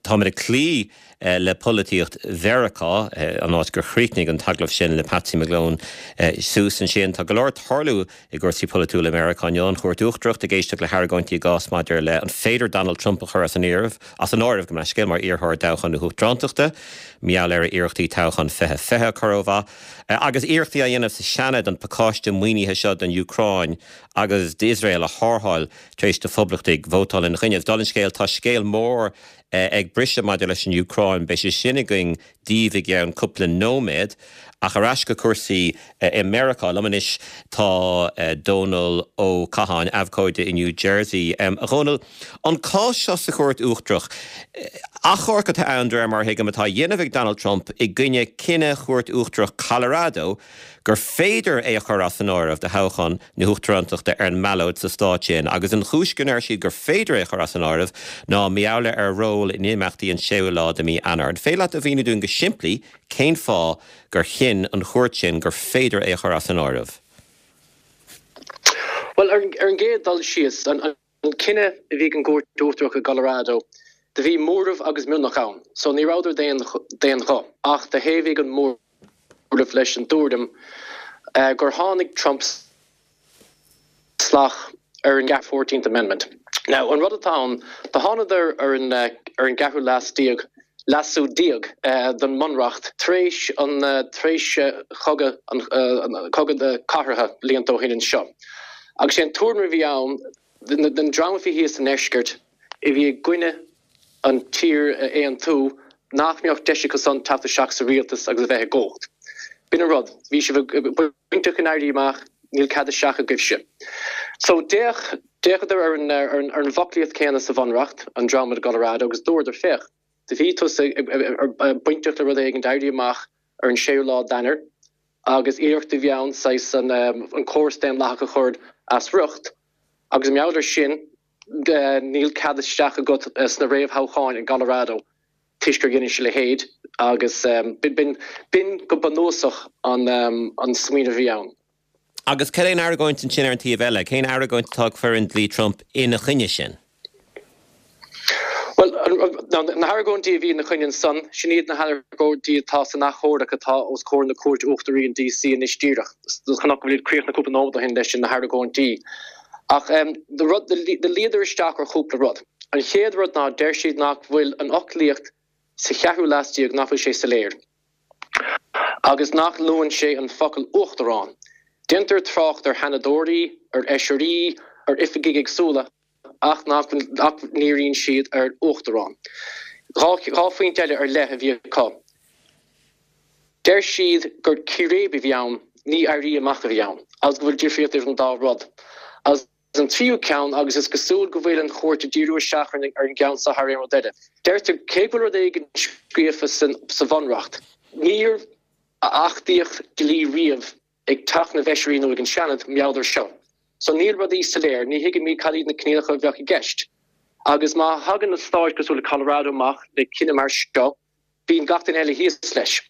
Táimid ag cloí le polaitíocht Mheiriceá, an áit gur chríochnaigh an t-agallamh sin le Patsy McGlone suas ansin. Tá go leor ag tarlú i gcúrsaí polaitiúla i Meiriceá inniu, an Chúirt Uachtarach ag éisteacht le hargóintí i gcás maidir le an féidir Donald Trump a chur as an áireamh, as an áireamh, gabh mo leithscéal, mar iarrthóir i dtoghchán na huachtarántachta, mar gheall ar a iarrachtaí toghchán 2020 a chur ó mhaith, agus iarrachtaí á dhéanamh sa Seanad an pacáiste maoinithe seo don Úcráin agus d'Iosrael a tharrtháil tar éis do phoblachtaigh vótáil ina choinne. Agus dála an scéil, tá scéal mór ag briseadh maidir leis an Úcráin. Beidh sé sin againn daoibh i gceann cúpla nóiméad. Ach ar ais go cúrsaí i Meiriceá. Liom anois tá Dónal Ó Catháin, abhcóide i New Jersey. A Dhónaill, an cás seo sa Chúirt Uachtarach, achomharc atá ann, de réir mar a thuigim, atá á dhéanamh ag Donald Trump i gcoinne cinneadh Chúirt Uachtarach Colorado gur féidir é a chur as an áireamh do thoghchán na huachtarántachta ar an mballóid sa stát sin, agus an chúis go ndeir siad gur féidir é a chur as an áireamh ná mar gheall ar a ról in imeachtaí an séú lá de mhí Eanáir. An féidir leat a mhíniú dúinn go simplí cén fáth gur chinn an chúirt sin gur féidir é a chur as an áireamh? Bhuel, ar an gcéad dul síos, an cinneadh a bhí ag an gCúirt Uachtarach i gColorado, do bhí móramh agus mionlach ann, so ní rabhadar d'aon ghuth, ach do thaobhaigh an móramh leis an dtuairim gur tháinig Trump salach ar an Fourteenth Amendment. Now, an rud atá ann, do thánadar ar an ar an gceathrú leas déag, leasú déag don mBunreacht tar éis an tar éis chogadh an cogadh na cathartha blianta ó shin anseo. Agus sé an tuairim a bhí ann, den dream a bhí thíos sa ndeisceart, a bhí i gcoinne an tír a aontú, nach mbeadh deis acu san teacht isteach sa rialtas agus a bheith i gcumhacht. B'in an rud. Bhí sibh bainteach in Éirí Amach, níl cead isteach agaibhse. So d'fhéach, d'fhéachadar ar an, ar an, ar an bhfoclaíocht céanna sa Bhunreacht, an dream i gColorado, agus dúradar, féach, do bhí tusa bainteach le rud éigin, d'éirí amach ar an séú lá d'Eanáir, agus iarracht a bhí ann saghas an, an córas daonlathach a chur as riocht, agus mar gheall air sin, níl cead isteach agat sna réamhthoghcháin i gColorado toisc gur dheinis a leithéid agus b'in go bunúsach an smaoineamh a bhí ann. Agus cad é an argóint ansin ar an taobh eile? Cén argóint atá ag foireann dlí Trump ina choinne sin? Bhuel, na hargóintí a bhí ina choinne ansan, sin iad na hargóintí atá san achomharc atá os comhair na Cúirte Uachtaraí in DC anois díreach. Chonac go bhfuil iad críochnaithe cúpla nóiméad ó shin leis na hargóintí. Ach do luíodar isteach ar chúpla rud. An chéad rud ná deir siad nach bhfuil an fhoclaíocht sa cheathrú leas déag, nach bhfuil sé soiléir. Agus nach luann sé an focal 'uachtarán'. Déantar trácht ar sheanadóirí, ar fheisirí, ar oifigigh éagsúla. ach nach ndíríonn siad ar uachtarán. 2 phointe eile ar leith a bhí acu. Deir siad gur círéib a bhí ann, ní éirí amach a bhí ann, agus go bhfuil difríocht idir an dá rud. Agus an tríú ceann, agus is cosúil go bhfuil an chúirt ag díriú isteach ar an gceann seo thar aon rud eile, deirtear cé go bhfuil rud éigin scríofa sa Bhunreacht, níor achtaíodh dlí riamh ag Teach na bhFeisirí nó ag an Seanad mar gheall air seo. So níl rudaí soiléir, ní thuigimid cad iad na coinníollacha a bheadh i gceist. Agus má thagann na stáit cosúil le Colorado amach le cinneadh mar seo, bíonn gach duine eile thíos leis.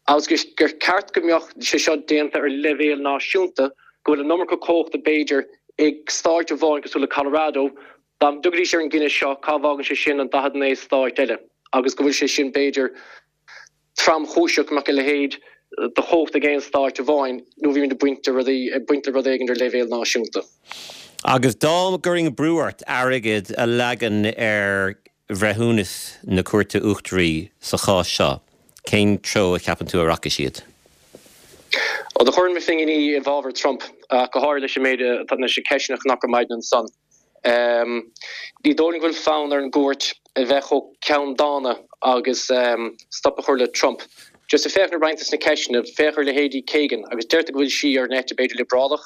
Agus gur ceart go mbeadh sé seo déanta ar leibhéal náisiúnta, go bhfuil an iomarca cumhachta b'fhéidir ag stáit amháin cosúil le Colorado, dá dtiocfaidís ar an gcinneadh seo, cá bhfágann sé sin an 49 stáit eile? Agus go bhfuil sé sin b'fhéidir tromchúiseach go mbeadh a leithéid de chumhacht ag aon stáit amháin nó bhí muid ag baint de rudaí, ag baint le rud éigin ar leibhéal náisiúnta. Agus dá gcuirfinn brú ort airgead a leagan ar bhreithiúnas na Cúirte Uachtaraí sa chás seo, cén treo a cheapann tú a rachaidh siad? Ó, do chuirfinn mo phinginí i bhfabhar Trump, ach go háirithe leis an méid atá, leis na ceisteanna a chonac ar maidin ansan. Ní dóigh liom go bhfuil fonn ar an gcúirt a bheith chomh ceanndána agus stop a chur le Trump. Just ag féachaint ar roinnt des na ceisteanna, féach ar leithéidí Kagan agus deirtear go bhfuil sí ar an eite b'fhéidir liobrálach.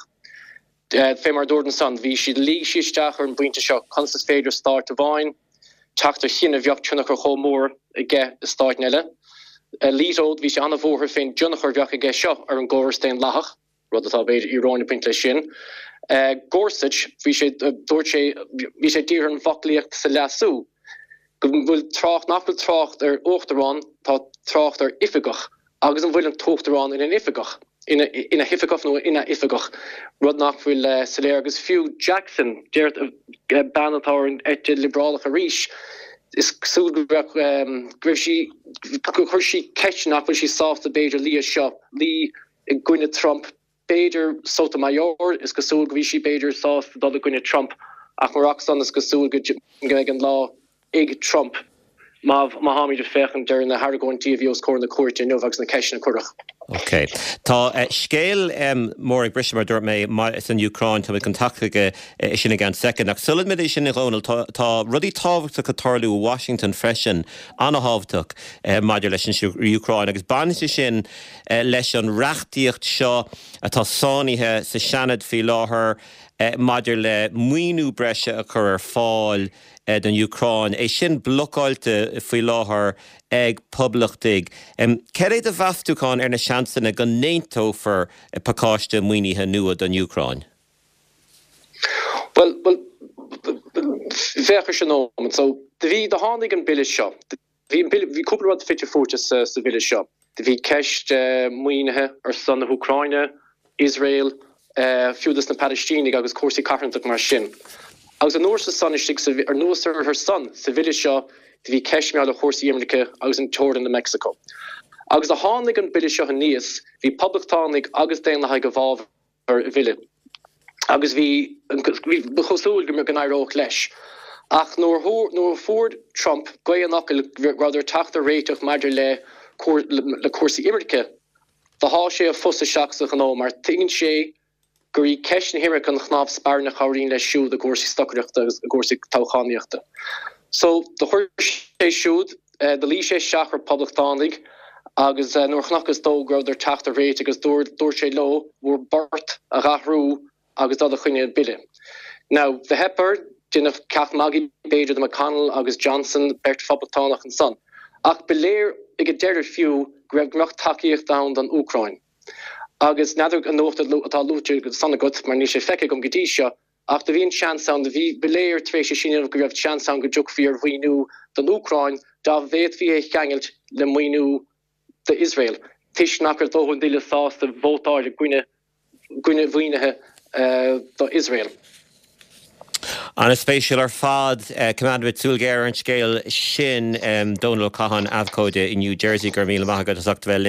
Fé mar a dúirt ansan, bhí siad, luigh sí isteach ar an bpointe seo, conas is féidir stáit amháin teacht ar chinneadh a bheadh tionchar chomh mór aige i stáit eile. Alito, bhí sé an-bhuartha fén dtionchar a bheadh aige seo ar an gcóras daonlathach. rud atá b'fhéidir íoróin ag baint leis sin. Gorsuch, bhí sé, dúirt sé, bhí sé dírithe ar an bhfoclaíocht sa leasú, go bhfuil trácht, nach bhfuil trácht ar uachtarán, tá trácht ar oifigeach, agus an bhfuil an t-uachtarán ina oifigeach, ina, ina hoifigeach nó ina oifigeach, rud nach bhfuil soiléir. Agus fiú Jackson, deir, bean atá ar an eite liobrálach arís. Is cosúil go raibh, go raibh sí, gur chuir sí ceist nach bhfuil sí sásta b'fhéidir luí as seo, luí i gcoinne Trump. B'fhéidir Sotomayor, is cosúil go bhí sí b'fhéidir sásta dul i gcoinne Trump ach murach san is cosúil go mbeidh an lá ag Trump má táimid ag féachaint ar na hargóintí a bhí os comhair na cúirte inniu agus na ceisteanna a cuireadh. Ok. Tá scéal mór ag briseadh, mar a dúirt mé, san Úcráin. Táimid chun teacht chuige sin i gceann soicind. Ach sula mbeidh sin, a Dhónaill, tá rudaí tábhachtacha ag tarlú i Washington freisin, an-thábhachtach maidir leis an Úcráin agus baineann sé sin leis an reachtaíocht seo atá sáinnithe sa Seanad faoi láthair maidir le maoiniú breise a chur ar fáil don Úcráin, é sin blocáilte faoi láthair ag poblachtaigh. Cad é do mheastúchán ar na seansanna go n-aontófar pacáiste maoinithe nua don Úcráin? Bhuel, bhuel, féach ar sin nóiméad. So, do bhí, do tháinig an bille seo. Bhí an bille, bhí cúpla rud fite fuaite sa, sa bhille seo. Do bhí ceist maoinithe ar son na hÚcráine, Iosrael, fiú dos na Palaistínigh agus cúrsaí carthanachta mar sin. Agus anuas ar san istigh sa, anuas ar san, sa bhille seo, do bhí ceist mar gheall ar chúrsaí imirce agus an teorainn le Meicsiceo. Agus do tháinig an bille seo aníos, bhí poblachtánaigh agus daonlathaigh i bhfabhar an bhille agus bhí, bhí, ba chosúil go n-éireodh leis. Ach nuair, nuair a fuair Trump gaoth an fhocail go rabhadar ag teacht ar réiteach maidir le, le cúrsaí imirce, Do sháigh sé a phus isteach sa ghnó mar tuigeann sé gur í ceist na himirce an chnámh spairne a chabhraíonn leis siúd i gcúrsaí stocaireachta agus i gcúrsaí toghchánaíochta. So, do chuir sé siúd, do luigh sé isteach ar poblachtánaigh agus nuair a chonacthas dó go rabhadar ag teacht ar réiteach agus dúirt sé leo bhur bport a dh'athrú agus dul i gcoinne an bille. Now, do theip air, deineadh ceacht magaidh b'fhéidir de McConnell agus Johnson, beirt phoblachtánach ansan. Ach ba léir ag an deireadh fiú go raibh go mbeadh tacaíocht ann don Úcráin. Agus n'fheadar an nuacht atá luaite ansan agat, mar níl sé feicthe agam go dtí seo, ach do bhí an seans ann, do bhí, ba léir tar éis é sin inniu go raibh seans ann go dtiocfaí ar mhaoiniú don Úcráin dá bhféadfaí é a cheangailt le maoiniú d'Iosrael, toisc nach raibh dóthain daoine sásta vótáil i gcoinne gcoinne mhaoinithe do Iosrael. An-spéisiúil ar fad. Coimeádfaimid súil ghéar ar an scéal sin. Dónal Ó Catháin, abhcóide i New Jersey, go raibh míle maith agat as ucht a bheith linn.